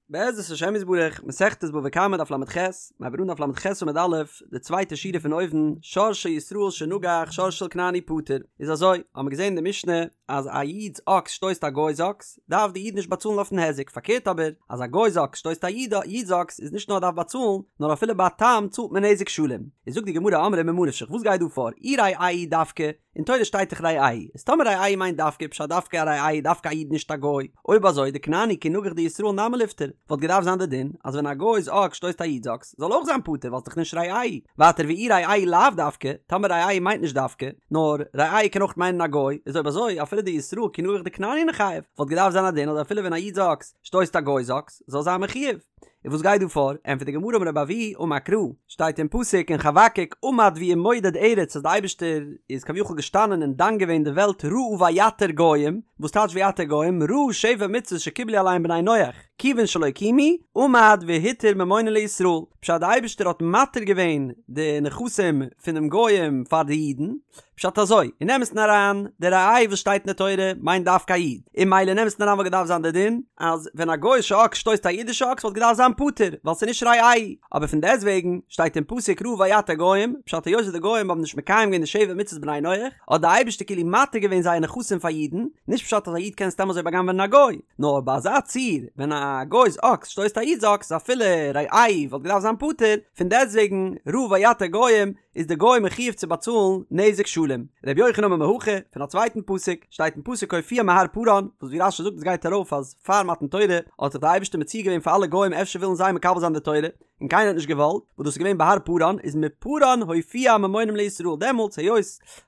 בעזרת השם יתברך, מסכת בבא קמא דף לח, מיר הייבן אן דף לח עמוד א', די צווייטע שורה פון אויבן, שור של ישראל שנגח שור של כנעני פטור, איז אזוי, האמיר געזען אין די משנה אז א איד'ס אקס שטויסט א גוי'ס אקס, דארף די איד נישט באצאלן אויפן היזק, פארקערט אבער, אז א גוי'ס אקס שטויסט א איד'ס אקס איז נישט נאר דארף באצאלן, נאר אפילו ביי א תם צאלט מען נזק שלם. איז זאגט די גמרא אמרי ממה נפשך וואס גייט דא פאר, אי רעהו דווקא, אין תורה שטייט דאך רעהו, איז טאמער רעהו מיינט דווקא פשט דווקא א רעהו דווקא א איד נישט א גוי, אויב אזוי דכנעני כי נגח דישראל נמי ליפטר, וואלט געדארפט זיין די דין אז ווען א גוי'ס אקס שטויסט א איד'ס אקס זאל אויך זיין פטור ווייל ס'דאך נישט רעהו, ווייטער ואי רעהו לאו דווקא, טאמער רעהו מיינט נישט דווקא, נאר רעהו קען אויך מיינען א גוי, איז אויב אזוי אפילו דישראל כי נגח דכנעני ניחייב, וואלט געדארפט זיין א דין אז אפילו ווען א איד'ס אקס שטויסט א גוי'ס אקס זאל זיין מחויב. און וואס גייט דא פאר? ענטפערט די גמרא אמר רבי אבהו אמר קרא, שטייט אין פסוק אין חבקוק עמד וימודד ארץ אז די אייבערשטער איז כביכול געשטאנען און דן געווען די וועלט ראה ויתר גוים, וואס טייטש ויתר גוים? ראה שבע מצוות שקיבלו עליהם בני נח, כיוון שלא קיימו, עמד והתיר ממונן לישראל, פשט די אייבערשטער האט מתיר געווען די נכסים פונעם גוים פאר די אידן, פשט אזוי, אין אמת'ן אריין, די רעהו וואס שטייט אין די תורה מיינט דווקא א איד, און ממילא אין אמת'ן אריין וואלט געדארפט זיין די דין אז ווען א גוי'אישע אקס שטויסט א אידישע אקס וואלט געדארפט זיין פטור ווייל ס'איז נישט רעהו, אבער פון דעסטוועגן שטייט אין פסוק ראה ויתר גוים, פשט היות וואס די גוים האבן נישט מקיים געווען די שבע מצוות בני נח, האט די אייבערשטער כאילו מתיר געווען זייער נכסים פאר אידן, נישט פשט אז א איד קען סתם אזוי בא'גנב'ענען א גוי, נאר ביי אזא ציור ווען א גוי'ס אקס שטויסט א איד'ס אקס אפילו רעהו וואלט געדארפט זיין פטור, פון דעסטוועגן ראה ויתר גוים איז די גוי מחויב צו באצאלן נזק שלם. ר' יוחנן אמר מהכא, פון א צווייטן פסוק, שטייט אין פסוק הופיע מהר פארן, וואס ווי רש"י זאגט עס גייט ארויף אז פאר מתן תורה האט זיך די אייבערשטער מציע געווען פאר אלע גוים אפשר ווילן זיי מקבל זיין די תורה, און קיינער האט נישט געוואלט, וואס דאס איז געווען בהר פארן, איז מפארן הופיע ממונם לישראל, דעמאלטס היות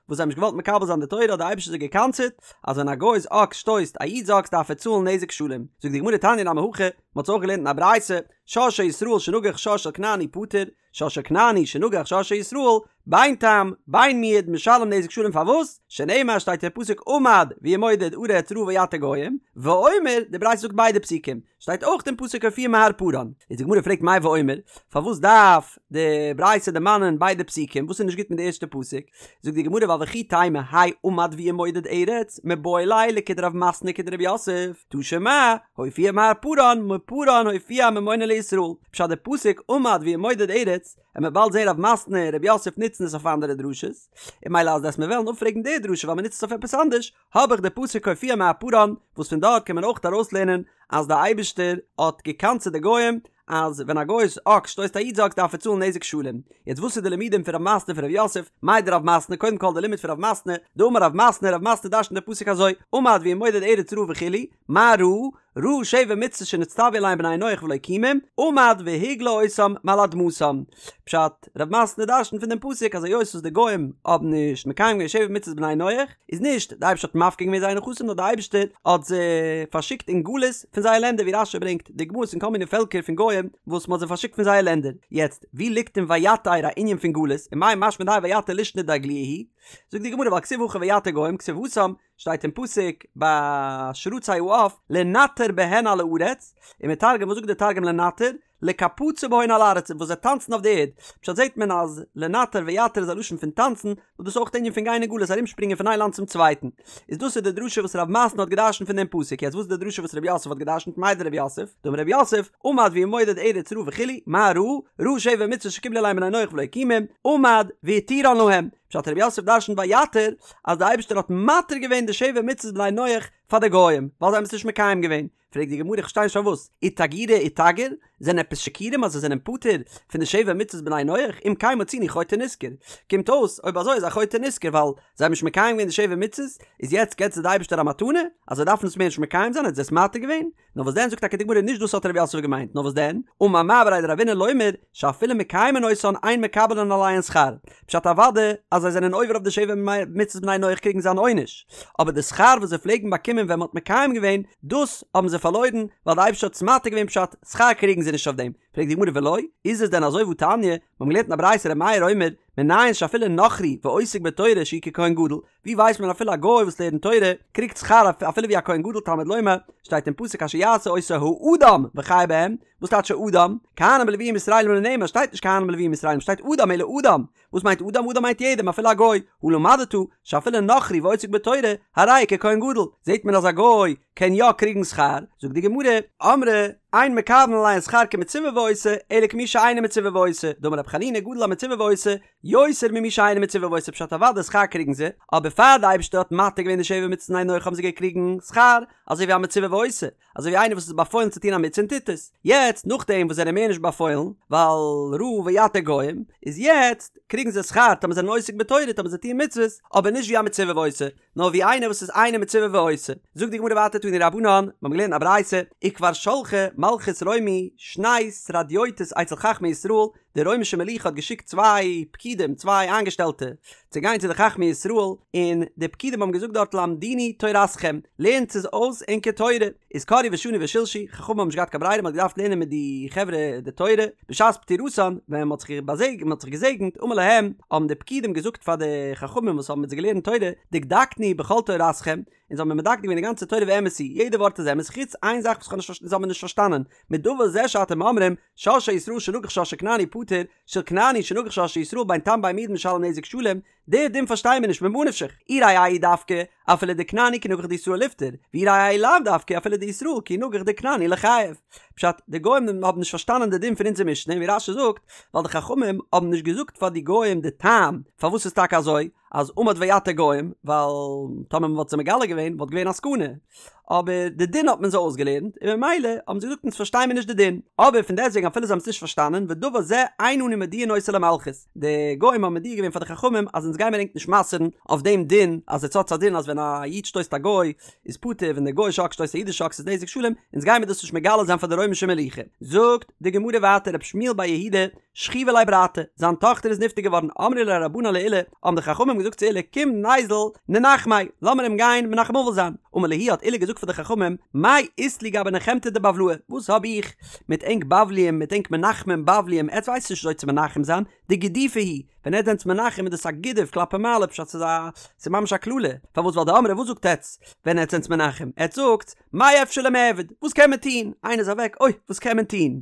וואס זיי האבן נישט געוואלט מקבל זיין די תורה האט די אייבערשטער זיי גע'קנס'עט אז ווען א גוי'ס אקס שטויסט א איד'ס אקס דארף ער צאלן נזק שלם. זאגט די גמרא תניא נמי הכי, מען האט עס אויך געלערנט אין א ברייתא, שור של ישראל שנגח שור של כנעני פטור, שור של כנעני שנגח שור של ישראל, בין תם, בין מועד, משלם נזק שלם פארוואס? שנאמר שטייט אין פסוק עמד וימודד ארץ ראה ויתר גוים, ואומר, די ברייתא זאגט ביידע פסוקים, שטייט אויך אין פסוק הופיע מהר פארן, איז די גמרא פרעגט מאי ואומר, פארוואס דארף די ברייתא דערמאנען ביידע פסוקים, וואס איז נישט גוט מיט די ערשטע פסוק? זאגט די גמרא ווייל וכי תימא האי עמד וימודד ארץ מיבעי ליה לכדרב מתנה כדרב יוסף, תא שמע, הופיע מהר פארן, מפארן הופיע ממונן לישראל, פשט די פסוק עמד וימודד ארץ, עמיר באלד זעהן רב מתנה און רב יוסף נוצן עס אויף אנדערע דרשות, און ממילא אז דאס מיר וועלן אפפרעגן די דרשה ווייל מ'נוצט עס אויף עפעס אנדערש, האב איך די פסוק הופיע מהר פארן, וואס פון דארט קען מען אויך ארויסלערנען אז די אייבישטער האט געקנס'עט די גוים אז ווען א גוי'ס אקס שטויסט א איד'ס אקס דארף ער צאלן נזק שלם. יעצט וואס איז די לימודים פון רב מתנה און פון רב יוסף? מאי דרב מתנה, קודם כל די לימוד פון רב מתנה, דאמר רב מתנה, רב מתנה דרש'נט די פסוק אזוי, עמד וימודד ארץ ראה וכו', מה ראה? ראה שבע מצוות שנצטוו עליהן בני נח ולא קיימום, עמד והגלה אותם מעל אדמתם. פשט, רב מתנה דרש'נט פון דעם פסוק אז היות וואס די גוים האבן נישט מקיים געווען שבע מצוות בני נח, איז נישט די אייבערשטער האט מפקיר געווען זייער נכסים נאר די אייבערשטער האט זיי פארשיקט אין גלות פון זייער לענדער ווי רש"י ברענגט דוגמאות פון כל מיני פעלקער פון גוים וואס מ'האט זיי פארשיקט פון זייער לענדער. יעצט, ווי ליגט אין ויתר א ענין פון גלות, ומאי משמע דהאי ויתר לישנא דאגלויי הוא? זאגט די גמרא ווייל כתיב הכא ויתר גוים כתיב התם, שטייט אין פסוק ביי שרצי העוף לנטר בהן על הארץ, ומתרגם וואס זאגט די תרגום לנטר? לקפצא בהון על ארצא וואס זיי טאנצן אויף די ערד, פשט זעט מען אז לנטר ויתר איז א לשון פון טאנצן, וואס דאס איז אויך די ענין פון גיין אין גלות ארומשפרינגען פון איין לאנד צום צווייטן, איז דאס איז די דרשה וואס רב מתנה האט געדרשנט פון דעם פסוק, יעצט וואס איז די דרשה וואס רב יוסף האט געדרשנט מאי דרב יוסף, דאמר רב יוסף, עמד וימודד ארץ ראה וכו', מה ראה? ראה שבע מצוות שקיבלו עליהם בני נח ולא קיימום, עמד והתירן להם, פשט רב יוסף דרשנט ויתר אז די אייבערשטער האט מתיר געווען די שבע מצוות בני נח פאר די גוים ווייל זיי האבן עס נישט מקיים געווען, פרעגט די גמרא איך פארשטיי נישט פארוואס איתגורי איתגר זענען עפעס שיכורים אז זיי זענען פטור פון די שבע מצוות בני נח אם כן מצינו חוטא נשכר קומט אויס אויב אזוי איז א חוטא נשכר ווייל זיי האבן נישט מקיים געווען די שבע מצוות איז יעצט געבט זיי די אייבערשטער א מתנה אז זיי דארפן עס מער נישט מקיים זיין האט זיי עס מתיר געווען נאר וואס דען זאגט טאקע די גמרא נישט דאס האט רב יוסף געמיינט נאר וואס דען אמר מר בריה דרבינא לומר שאפילו מקיימין אותן אין מקבלין עליהן שכר פשט אוודאי אז זיי זענען עובר אויף די שבע מצוות בני נח קריגן זיי אן עונש אבער די שכר וואס זיי פלעגן באקומען ווען מ'האט מקיים געווען דאס האבן זיי פארלוירן ווייל די אייבערשטער האט עס מתיר געווען פשט שכר קריגן זיי נישט אויף דעם פרעגט די גמרא ולא איז עס דען אזוי והתניא מ'האבן געלערנט אין א ברייתא ר' מאיר אומר מנין שאפילו נכרי ועוסק בתורה שהוא ככהן גדול ווי ווייסט מען אפילו א גוי וואס לערנט תורה קריגט שכר אפילו ווי א כהן גדול תלמוד לומר שטייט אין פסוק אשר יעשה אותו האדם וחי בהם וואס טייטש האדם? כהנים ולוויים וישראלים לא נאמר שטייט נישט כהנים ולוויים וישראלים שטייט אדם אלא אדם וואס מיינט אדם? אדם מיינט יעדעם אפילו א גוי הא למדת שאפילו נכרי ועוסק בתורה הרי הוא ככהן גדול זעט מען אז א גוי. קען יא קריגן שכר, זאגט די גמרא, אמרי אין מקבלין עליהן שכר כמצווה ועושה, אלא כמי שאינו מצווה ועושה, דאמר רבי חנינא גדול המצווה ועושה, יותר ממי שאינו מצווה ועושה פשט אוודאי שכר קריגן זיי, אבער פאר די אייבערשטער האט מתיר געווען די שבע מצוות לבני נח האבן זיי געקריגן שכר, אזוי ווי א מצווה ועושה, אזוי ווי איינער וואס איז באפוילן צו טון א מצוה און טוט עס, יעצט נאכדעם וואס זיי זענען מער נישט באפוילן, ווייל ראה ויתר גוים, איז יעצט קריגן זיי שכר טאמער זיי זענען עוסק בתורה טאמער זיי טוען מצוות, אבער נישט ווי א מצווה ועושה, נאר ווי איינער וואס איז אינו מצווה ועושה. זאגט די גמרא ווייטער תנו רבנן, מיר האבן געלערנט א ברייתא, וכבר שלחה מלכות רומי שני סרדיוטות אצל חכמי ישראל, די רוימישע מלוכה האט געשיקט צוויי פקידים, צוויי איינגעשטעלטע, צו גיין צו די חכמי ישראל, און די פקידים האבן געזאגט דארט למדונו תורתכם, לערנטס אונז אויס ענקער תורה, איז קראו ושנו ושלשו, חכמים האבן נישט געהאט קיין ברירה, מען האט געדארפט לערנען מיט די חברה די תורה, בשעת פטירתן, ווען מען האט זיך באזעג, מען האט זיך געזעגנט, אמר להם, האבן די פקידים געזאגט פאר די חכמים וואס האבן מיט זיי געלערנט תורה, דקדקנו בכל תורתכם, אונז האבן מיר מדקדק געווען די גאנצע תורה ואמת היא, יעדע ווארט איז אמת, חוץ איין זאך וואס כ'האב נישט אונז האבן מיר נישט פארשטאנען, מדבר זה שאתם אומרים, שור של ישראל שנגח שור של כנעני פטור, של כנעני שנגח שור של ישראל בין תם בין מועד משלם נזק שלם, די דין פארשטייען מיר נישט ממה נפשך, אי רעהו דווקא, אפילו דכנעני כי נגח דישראל ליפטר, ואי רעהו לאו דווקא אפילו דישראל כי נגח דכנעני ליחייב. פשט, די גוים האבן נישט פארשטאנען די דין פון אונזער משנה, און ווי רש"י זאגט, ווייל די חכמים האבן נישט געזאגט פאר די גוים די טעם פארוואס ס'איז טאקע אזוי, אז עמד ויתר גוים, ווייל טאמער מ'וואלט זיי מגלה געווען וואלט געווען א סכנה, אבער די דין האט מען זיי אויסגעלערנט, און ממילא האבן זיי געזאגט אונז פארשטיי מיר נישט די דין, אבער פון דעסטוועגן אפילו זיי האבן עס נישט פארשטאנען, ודבר זה אין אנו מודיעין אותו למלכות, די גוים האבן מודיע געווען פאר די חכמים אז אונז גיימיר ענק נישט מסר'ן אויף דעם דין, אז עטס האטס א דין אז ווען א איד שטויסט א גוי איז פטור, ווען דער גוי'אישע אקס שטויסט א אידישע אקס איז נזק שלם, אונז גיימיר דאס נישט מגלה זיין פאר די רוימישע מלוכה. זאגט די גמרא ווייטער רב שמואל בר יהודה, שכיבא ליה ברתא, זיין טאכטער איז נפטר געווארן, אמרו ליה רבנן לעולא, האבן די חכמים געזאגט צו עולא, קום ניזיל ננחמיה, לאמיר אים גיין מנחם אבל זיין. אמר להו האט עולא געזאגט פאר די חכמים, מאי אית לי גבי נחמתא דבבלאי, וואס האב איך מיט ענק בבליים, מיט ענק מנחמים בבליים, עטס ווייסט נישט וויאזוי צו מנחם זיין, דגידופא הוא, ווען עטס זענטס מנחם איז דאס א גידוף כלפי מעלה פשט ס'איז א ס'איז ממש א קללה, פארוואס ווייל דאמרי וואס זאגט עטס ווען עטס זענטס מנחם, עטס זאגטס מאי אפשר למעבד, וואס קען מען טון, איינער איז אוועק, אוי וואס קען מען טון,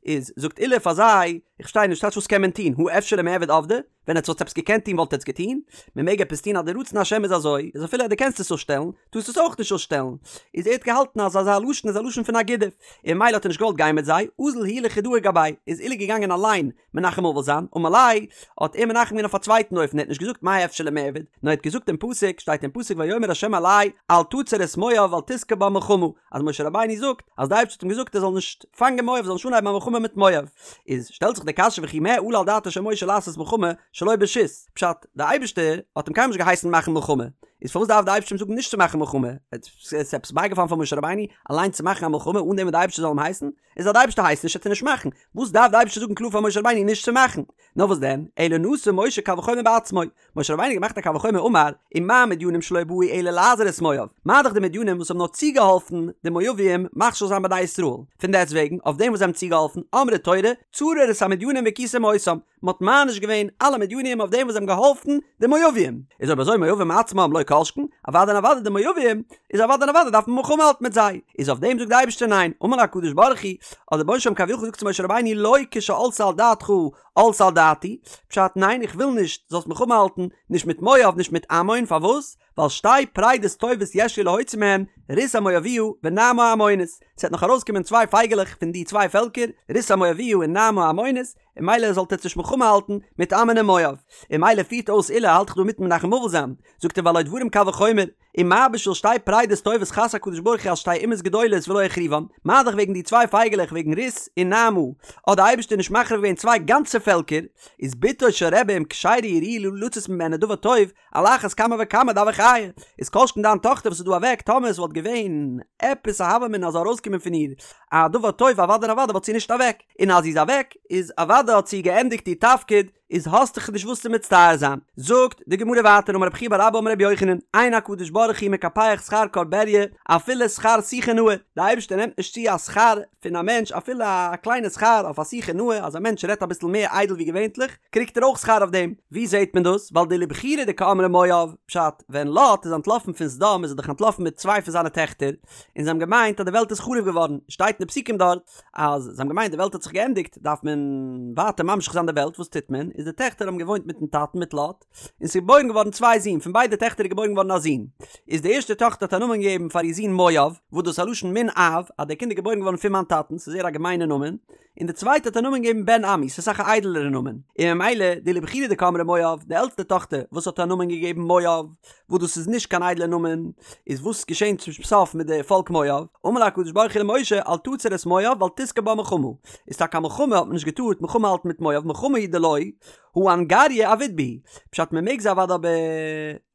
איז זאגט עולא פאר זיי, איך פארשטיי נישט טייטש וואס קען מען טון, הא אפשר למעבד עבדי, ווען עטס וואלטס עפעס געקענט טון וואלט עטס געטון, מען מעג עפעס טון אז די רצון השם איז אזוי, איז אפילו אז דו קענסט עס אפשטעלן, טארסט עס אויך נישט אפשטעלן, איז ער האט געהאלטן אז אזא לשון איז א לשון פון א גידוף, און ממילא האט ער נישט געוואלט גיין מיט זיי, אזל הוא לחודאי גביה, איז עולא געגאנגען אליין מנחם אבל זיין, אמר ליה, האט ער מנחם געווען אויף א צווייטן אופן, ער האט נישט געזאגט מאי אפשר למעבד, נאר ער האט געזאגט דעם פסוק, שטייט אין פסוק ויאמר ה' אלי אל תצר את מואב ואל תתגר בם מלחמה, אז משה רבינו זאגט אז די אייבערשטער האט אים געזאגט ער זאל נישט פאנגען מואב, זאל נישט אנהייבן א מלחמה מיט מואב, איז שטעלט זיך די קשיא וכי מה עלה על דעתו של משה לעשות מלחמה שלא ברשות, פשט, די אייבערשטער האט אים קיינמאל נישט געהייסן מאכן מלחמה, איז פארוואס דארף די אייבערשטער אים זאגן נישט צו מאכן מלחמה, עס איז עפעס בייגעפאלן פאר משה רבינו אליין צו מאכן א מלחמה אן דעם וואס די אייבערשטער זאל אים הייסן? איז אז די אייבערשטער הייסט נישט וועט ער נישט מאכן, וואס דארף די אייבערשטער זאגן קלאר פאר משה רבינו נישט צו מאכן? נאר וואס דען, אלא נשא משה קל וחומר בעצמו, משה רבינו האט געמאכט א קל וחומר אמר, ומה מדינים שלא באו אלא לעזור את מואב, מה דאך די מדינים וואס האבן נאר צוגעהאלפן די מואבים מכשיל זיין בני ישראל, פון דעסט וועגן אויף דעם וואס זיי האבן צוגעהאלפן, אמרה תורה, צרור את המדינים והכיתם אותם, מען האט מעניש געווען אלע מדינים אויף דעם וואס זיי האבן געהאלפן די מואבים, איז אויב אזוי מואבים עצמם לא כל שכן, אוודאי און אוודאי די מואבים, איז אוודאי און אוודאי דארף מען מלחמה האלטן מיט זיי, איז אויף דעם זאגט די אייבערשטער ניין, אמר לו הקדוש ברוך הוא, האט דער רבונו של עולם כביכול געזאגט צו משה רבינו לא כשעלתה על דעתך עלתה על דעתי, פשט ניין איך וויל נישט זאלסט מלחמה האלטן, נישט מיט מואב נישט מיט עמון, פארוואס? ווייל שתי פרידות טובות יש לי להוציא מהן, רות המואביה ונעמה העמונית, ס'וועט נאך ארויסקומען צוויי פייגעלעך פון די צוויי פעלקער, רות המואביה און נעמה העמונית, און ממילא זאלט עטס נישט מלחמה האלטן מיט עמון און מואב. און ממילא פירט אויס עולא האלט איך דא מיטן מנחם אבל זיין, זאגט ער והלא דברים קל וחומר, ומה בשביל שתי פרידות טובות חס הקדוש ברוך הוא על שתי אומות גדולות ולא החריבן, מה דאך וועגן די צוויי פייגעלעך וועגן רות און נעמה האט די אייבערשטער נישט מחריב געווען צוויי גאנצע פעלקער, איז בתו של רבי אם כשרה היא וראויה לצאת ממנה דבר טוב, על אחת כמה וכמה דהוה חיה, איז כל שכן דיין טאכטער וואס איז דא אוועק, טאמער עס וואלט געווען עפעס א הוה אמינא אז זאל ארויסקומען פון איר א דבר טוב אוודאי און אוודאי וואלט זי נישט אוועק, און אז זי איז אוועק איז אוודאי האט זי געענדיגט איר תפקיד, איז האסט דיך נישט וואס צו מצטער זיין. זאגט די גמרא ווייטער אמר רב חייא בר אבא אמר רבי יוחנן, אין הקדוש ברוך הוא מקפח שכר כל בריה אפילו שכר שיחה נאה, די אייבערשטער נעמט נישט צו א שכר פון א מענטש אפילו א קליינע שכר אויף א שיחה נאה, אז א מענטש רעדט אביסל מער איידל ווי געווענטליך, קריגט ער אויך שכר אויף דעם. ווי זעהט מען דאס? ווייל דאילו בחורא דקאמרי מואב, פשט, ווען לוט איז אנטלאפן פון סדום איז ער דאך אנטלאפן מיט צוויי פון זיינע טעכטער, און זיי האבן געמיינט אז די וועלט איז חרוב געווארן, שטייט אין די פסוקים דארט אז זיי האבן געמיינט די וועלט האט זיך געענדיגט דארף מען ווייטער ממשיך זיין די וועלט, וואס טוט מען? איז איז די טעכטער האבן געוואוינט מיטן טאטן מיט לוט, און ס'איז געבוירן געווארן צוויי זין, פון ביידע טעכטער איז געבוירן געווארן א זון. איז די ערשטע טאכטער האט א נאמען געגעבן פאר איר זון מואב, וואס דאס איז א לשון מן אב, אז דער קינד איז געבוירן געווארן פון מיין טאטן, ס'איז זייער א געמיינע נאמען, און די צווייטע האט א נאמען געגעבן בן עמי, ס'איז אסאך א איידעלערע נאמען, און ממילא דאילו בכירה דקאמרה מואב, די עלטסטע טאכטער וואס האט א נאמען געגעבן מואב, וואס דאס איז נישט קיין איידלער נאמען, איז וואס געשען צום סוף מיט די פאלק מואב? אמר לה הקדוש ברוך הוא למשה אל תצר את מואב ואל תשגור בה מלחמה, איז טאקע א מלחמה האט מען נישט געטארט מלחמה האלטן מיט מואב, מלחמה הוא דלא, הא אנגריא עביד בהו, פשט מען מעג זיי אוודאי אבער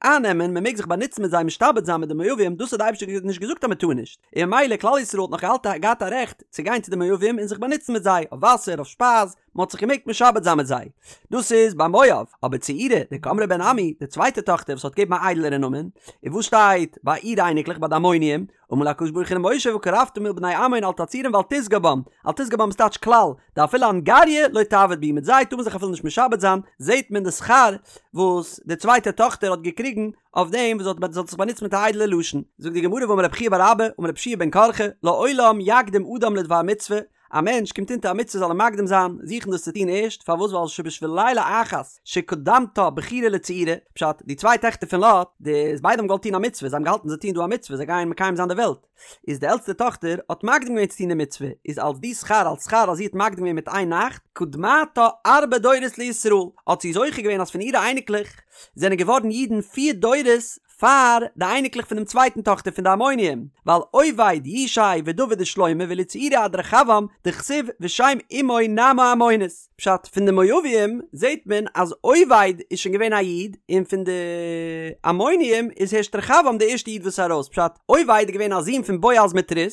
אייננעמען, מען מעג זיך באנוצן מיט זיי משתעבד זיין מיט די מואבים, דאס האט די אייבערשטער נישט געזאגט אז מען טאר נישט, און ממילא כלל ישראל האט נאך געהאלט געהאט א רעכט צו גיין צו די מואבים און זיך באנוצן מיט זיי, אויף וואסער, אויף שפייז, מען האט זיך געמעגט משעבד זיין מיט זיי. דאס איז ביי מואב, אבער צעירה, דקאמרה בן עמי, די צווייטע טאכטער וואס האט געגעבן א איידלערע נאמען, און וואס שטייט ביי אירע אייניקלעך ביי די עמוניים, אמר לה הקדוש ברוך הוא למשה וקרבת מול בני עמון אל תצורם ואל תשגור בם, אל תשגור בם איז טייטש כלל, דאפילו אנגריא לא תעביד בהו, מיט זיי טאר מען זיך אפילו נישט משעבד זיין, זעט מען די שכר וואס די צווייטע טאכטער האט געקריגן אויף דעם וואס זי האט זיך באנוצט מיט א איידעלע לשון. זאגט די גמרא ואמר רב חייא בר אבא אמר רבי יהושע בן קרחה לעולם יקדים אדם לדבר מצוה, א מענטש קומט אונטער א מצוה זאל ער מקדים זיין, זוכן דאס צו טון ערשט, פארוואס ווייל שבשביל לילה אחת שקדמתה בכירה לצעירה, פשט, די צוויי טעכטער פון לוט, די ביידע האבן געוואלט טון א מצוה, זיי האבן געהאלטן זיי טוען דא א מצוה, זיי גייען מקיים זיין די וועלט, איז די עלטסטע טאכטער האט מקדים געווען צו טון די מצוה, איז אלס די שכר אלס שכר אז זי האט מקדים געווען מיט איין נאכט, קדמתה ארבע דורות לישראל, האט זי זוכה געווען אז פון אירע אייניקלעך זענען געווארן אידן פיר דורות פאר די אייניקלעך פונעם צווייטן טאכטער פון די עמונים, ווייל עובד ישי ודוד ושלמה ואילו צעירה עד רחבעם דכתיב ושם אמו נעמה העמונית. פשט, פון די מואבים זעט מען אז עובד איז שוין געווען א איד, און פון די עמונים איז הערשט רחבעם די ערשטע איד וואס איז ארויס, פשט, עובד איז געווען א זון פון בועז מיט רות,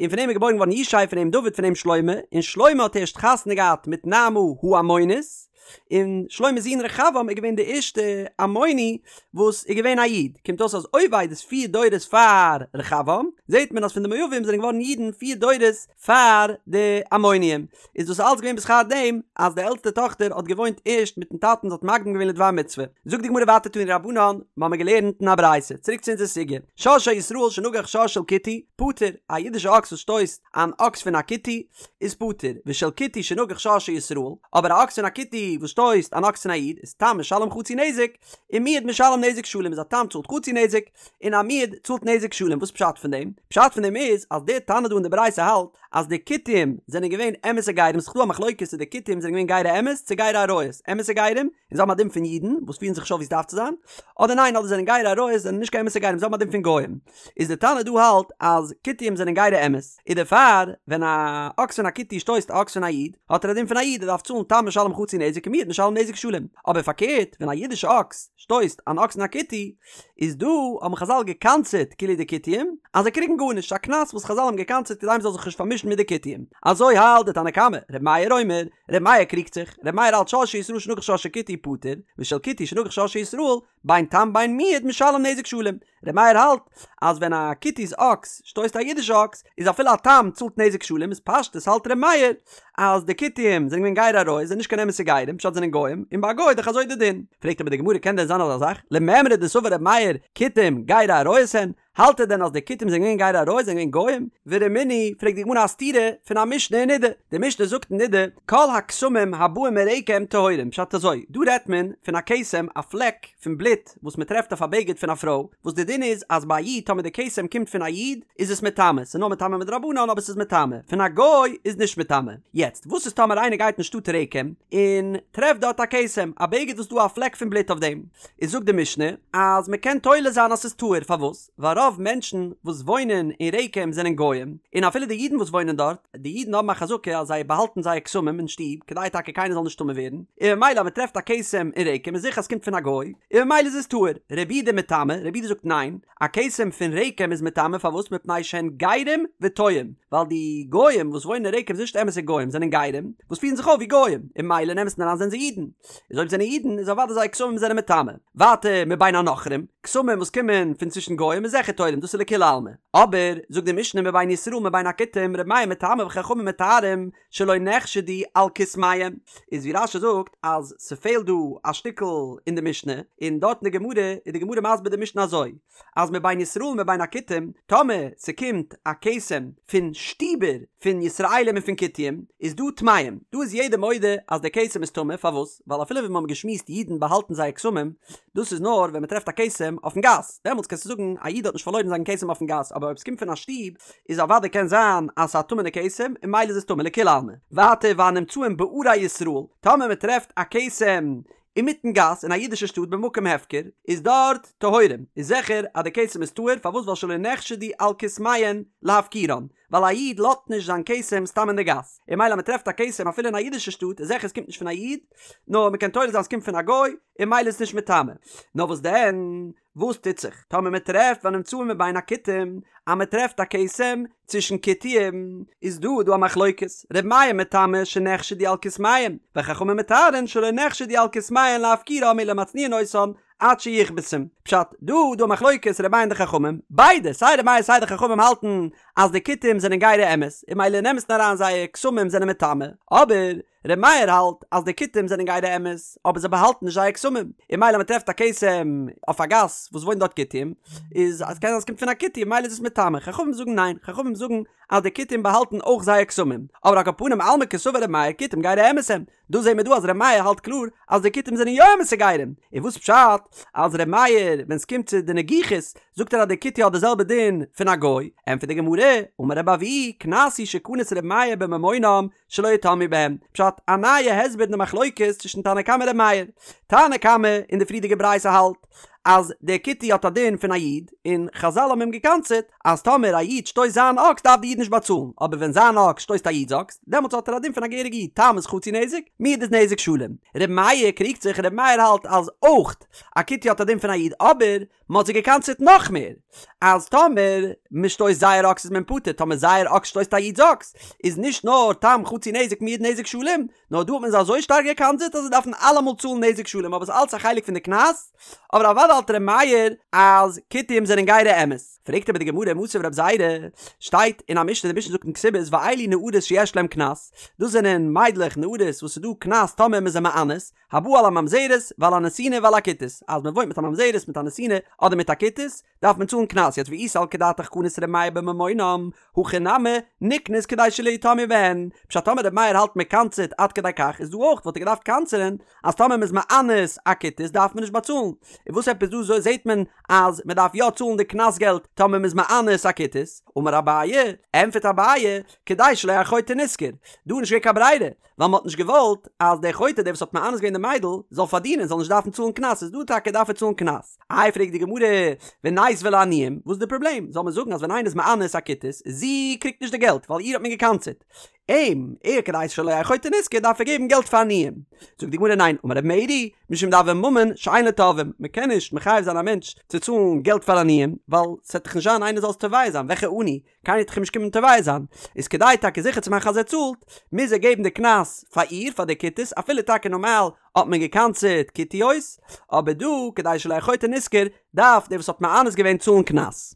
און פון אים איז געבוירן געווארן ישי פון אים דוד פון אים שלמה, און שלמה האט הערשט חתונה געהאט מיט נעמה העמונית. און שלמה'ס זון רחבעם איז געווען די ערשטע עמוני וואס איז געווען א איד, קומט אויס אז עובד איז פיר דורות פאר רחבעם, זעט מען אז פון די מואבים זענען געווארן אידן פיר דורות פאר די עמוניים, איז דאס אלץ געווען בשכר דעם אז די עלטסטע טאכטער האט געוואוינט ערשט מיטן טאטן זי האט מקדים געווען לדבר מצוה. זאגט די גמרא ווייטער תנו רבנן, מ'האמיר געלערנט אין א ברייתא, צוריק צו אונזער סוגיא, שור של ישראל שנגח שור של כותי, פטור, א אידישע אקס וואס שטויסט אן אקס פון א כותי, איז פטור, ושל כותי שנגח שור של ישראל, אבער א אקס פון א כותי וואס שטויסט אן אקס פון א איד, איז תם משלם חצי נזק, און מועד משלם נזק שלם איז א תם צאלט חצי נזק, און א מועד צאלט נזק שלם, וואס פשט פון דעם? פשט פון דעם איז אז דער תנא דא אין די ברייתא האלט אז די כותים זענען געווען אמת'ע גרים, ס'איז דא א מחלוקת צו די כותים זענען געווען גרי אמת צו גרי אריות, אמת'ע גרים, און זיי האבן א דין פון אידן וואס פירן זיך נישט אויף ווי עס דארף צו זיין, אדער ניין אדער זענען גרי אריות זענען נישט קיין אמת'ע גרים זיי האבן א דין פון גוים. איז די תנא דא האלט אז כותים זענען גרי אמת, איז דערפאר ווען א אקס פון א כותי שטויסט א אקס פון א איד האט ער א דין פון א איד ער דארף צאלן תם משלם חצי נזק און מועד משלם נזק שלם, אבער פארקערט ווען א אידישע אקס שטויסט אן אקס פון א כותי איז דא האבן חזל געקנס'עט כאילו די כותים אז זיי קריגן גארנישט א קנס וואס חזל האבן געקנס'עט כדי מ'זאל זיך נישט פארמישן מיט די כותים אזוי האלט די תנא קמא, ר' מאיר אומר, ר' מאיר קריגט זיך, ר' מאיר האלט שור של ישראל שנגח שור של כותי פטור, ושל כותי שנגח שור של ישראל בין תם בין מועד משלם נזק שלם, ר' מאיר האלט אז ווען א כותי'ס אקס שטויסט א אידישע אקס איז אפילו א תם צאלט נזק שלם איז פשטות האלט ר' מאיר אז די כותים זענען געווען גרי אריות זענען נישט קיין אמת'ע גרים פשט זענען גוים און ביי א גוי איז דאך אזוי די דין פרעגט אבער די גמרא קען דען זיין אזא זאך למימרא דסבר ר' מאיר כותים גרי אריות הן האלט ער דען אז די כותים זענען געווען גרי אריות זענען געווען גוים ורמינהי פרעגט די גמרא א סתירה פון א משנה אין נידה די משנה זאגט אין נידה כל הכתמים הבאים מרקם טהורים פשט אזוי דא רעדט מען פון א כתם א פלעק פון בלוט וואס מען טרעפט אויף א בגד פון א פרוי, וואס די דין איז אז ביי א איד טאמער די כתם קומט פון א איד איז עס מטמא, ס'איז נאר מטמא מדרבנן אבער ס'איז מטמא, פון א גוי איז נישט מטמא. יעצט וואס איז טאמער איינער גייט אין שטאט רקם און טרעפט דארט א כתם, א בגד וואס דא א פלעק פון בלוט אויף דעם, איז זאגט די משנה אז מען קען תולה זיין אז ס'איז טהור, פארוואס? ווייל רוב מענטשן וואס וואוינען אין רקם זענען גוים, און אפילו די אידן וואס וואוינען דארט, די אידן האבן א חזקה אז זיי באהאלטן זייער כתמים אין שטוב כדי טאקע קיינער זאל נישט טמא ווערן, און ממילא אז מען טרעפט א כתם אין רקם איז זיכער אז ס'קומט פון א גוי, און ממילא איז עס טהור. רבי יהודה מטמא, רבי יהודה זאגט ניין, א כתם פון רקם איז מטמא פארוואס מפני שהן גרים וטועים, ווייל די גוים וואס וואוינען אין רקם זענען נישט אמת'ע גוים זענען גרים וואס פירן זיך אויף ווי גוים, און ממילא אין אמת'ן אריין זענען זיי אידן, איז אויב זענען אידן איז אוודאי זייער כתמים זענען מטמא. ווייטער מבין הנכרים, כתמים וואס קומען פון צווישן גוים איז זיכער. זיכער תולים, דאס איז לכולי עלמא. אבער, זאגט די משנה מבין ישראל מבין הכותים ר' מאיר מטמא וחכמים מטהרים שלא נחשדו על כתמיהם, איז ווי רש"י זאגט אז ס'פעלט דא א שטיקל אין די משנה, און דארט אין די גמרא איז די גמרא מסביר די משנה אזוי, אז מבין ישראל מבין הכותים, טאמער ס'קומט א כתם פון שטיבער פון ישראלים און פון כותים, איז דא טמאים, דא איז יעדער מודה אז דער כתם איז טמא, פארוואס? ווייל אפילו ווי מ'האבן געשמועסט אידן באהאלטן זייער כתמים, דאס איז נאר ווען מ'טרעפט א כתם אויפן גאס, דעמאלטס קענסטו זאגן א איד האט נישט פארלוירן זיין כתם אויפן גאס, אבער אויב ס'קומט פון א שטוב, איז אוודאי קען זיין אז ס'איז א טמא'נע כתם, און ממילא איז עס טמא לכולי עלמא. ווייטער והנמצאים בערי ישראל, טאמער מ'טרעפט א כתם אינמיטן גאס אין א אידישע שטאט במקום הפקר, איז דארט טהורים, איז זיכער אז די כתם איז טהור, פארוואס ווייל שלא נחשדו על כתמיהן להפקירן, ווייל א איד לאזט נישט זיין כתם סתם אין די גאס, און ממילא אז מען טרעפט א כתם אפילו אין א אידישע שטאט איז זיכער עס קומט נישט פון א איד, נאר מען קען תולה זיין עס קומט פון א גוי, און ממילא איז עס נישט מטמא. נאר וואס דען? וואס טוט זיך טאמער מען טרעפט והנמצאים מבין הכותים, אז מען טרעפט א כתם צווישן כותים, איז דא דא א מחלוקת, ר' מאיר מטמא שנחשדו על כתמיהם, וחכמים מטהרין שלא נחשדו על כתמיהן להפקירם אלא מצניעין אותן עד שיכבסום. פשט, דא דא א מחלוקת ר' מאיר און די חכמים, ביידע סיי ר' מאיר סיי די חכמים האלטן אז די כותים זענען גירי אמת, און ממילא אין אמת'ן אריין זייער כתמים זענען מטמא, אבער ר' מאיר האלט אז די כותים זענען גירי אמת, אבער זיי באהאלטן נישט זייער כתמים, און ממילא מ'טרעפט א כתם אויף א גאס וואס וואוינט דארט כותים, איז אז קען זיין עס קומט פון א כותי און ממילא איז עס מטמא, חכמים זאגן ניין, חכמים זאגן אז די כותים באהאלטן אויך זייער כתמים, אבער על כל פנים אלמא קסבר ר' מאיר כותים גירי אמת הם, דא זעהן מיר דא אז ר' מאיר האלט קלאר אז די כותים זענען יא אמת'ע גרים, און וואס פשט אז ר' מאיר ווען ס'קומט צו די נגיחות זאגט ער אז די כותי האט די זעלבע דין פון א גוי, ענטפערט די גמרא, אמר רבי אבהו, קנס הוא שקנס ר' מאיר בממונם שלא יטמאו בהם, פשט, א נייע הסבר אין די מחלוקת צווישן תנא קמא און ר' מאיר. תנא קמא אין די פריערדיגע ברייתא האלט אז דער כותי האט א דין פון א איד, און חזל האבן אים געקנס'עט אז טאמער א איד שטויסט זיין אקס דארף די איד נישט באצאלן, אבער ווען זיין אקס שטויסט א איד'ס אקס, דעמאלטס האט ער א דין פון א געהעריגע איד, תם איז חצי נזק, מועד איז נזק שלם. ר' מאיר קריגט זיך, ר' מאיר האלט אז אויך א כותי האט א דין פון א איד, אבער מען האט זיי געקנס'עט נאך מער, אז טאמער מען שטויסט זייער אקס איז מען פטור, טאמער זייער אקס שטויסט א איד'ס אקס, איז נישט נאר תם חצי נזק מועד נזק שלם, נאר דא האט מען זיי אזוי שטארק געקנס'עט אז זיי דארפן אלעמאל צאלן נזק שלם, אבער ס'איז אלץ א חלק פון די קנס, אבער אוודאי האלט ר' מאיר אז כותים זענען גירי אמת. פרעגט אבער די גמרא מתיב רב זירא, שטייט אין א משנה, די משנה זאגט אין כתובות ואלו נערות שיש להם קנס, דאס זענען מיידלעך נערות וואס ס'איז דא קנס טאמער מ'איז זיי מאנס, הבא על הממזרת ועל הנתינה ועל הכותית, אז מען וואוינט מיט א ממזרת מיט א נתינה אדער מיט א כותית, דארף מען צאלן קנס, יעצט ואי סלקא דעתך קנס ר' מאיר בממונם, הכא נמי נקנוס כדי שלא יטמאו בהן, פשט טאמער ר' מאיר האלט מען קנס'עט עד כדי כך איז דא אויך וואלט ער געדארפט קנס'ענען אז טאמער מען איז מאנס א כותית דארף מען נישט באצאלן, און וואס עפעס דא זעהט מען אז מען דארף יא צאלן די קנס געלט טאמער מען איז מאנס א כותית, אמר אביי, ענפערט אביי, כדי שלא יהא חוטא נשכר, דא איז נישט געווען קיין ברירה, ווייל מ'האט נישט געוואלט אז דער חוטא דער וואס האט מאנס געווען די מיידל זאל פארדינען זאל נישט דארפן צאלן קנס איז דא טאקע דארף ער צאלן קנס. איי פרעגט די גמרא וניתביה לעניים וואס איז די פראבלעם זאל מען זאגן אז ווען איינער איז מאנס א כותית זי קריגט נישט די געלט ווייל איר האט מען געקנס'עט אים ער כדי שלא יהא חוטא נשכר דארף ער געבן געלט פאר עניים זאגט די גמרא ניין אמר רב מרי משום דהוי ממון שאין לו תובעים מ'קען נישט מחייב זיין א מענטש צו צאלן געלט פאר עניים ווייל ס'וועט דאך נישט זיין איינער זאל עס תובע זיין וועלכע עני קיינער וועט דאך אים נישט קומען תובע זיין, איז כדי טאקע זיכער צו מאכן אז ער צאלט, מוז ער געבן די קנס פאר איר, פאר די כותית, אפילו טאקע נארמאל האט מען געקנס'עט כותיות, אבער דא, כדי שלא יהא חוטא נשכר, דארף דער וואס האט מאנס געווען צאלן קנס.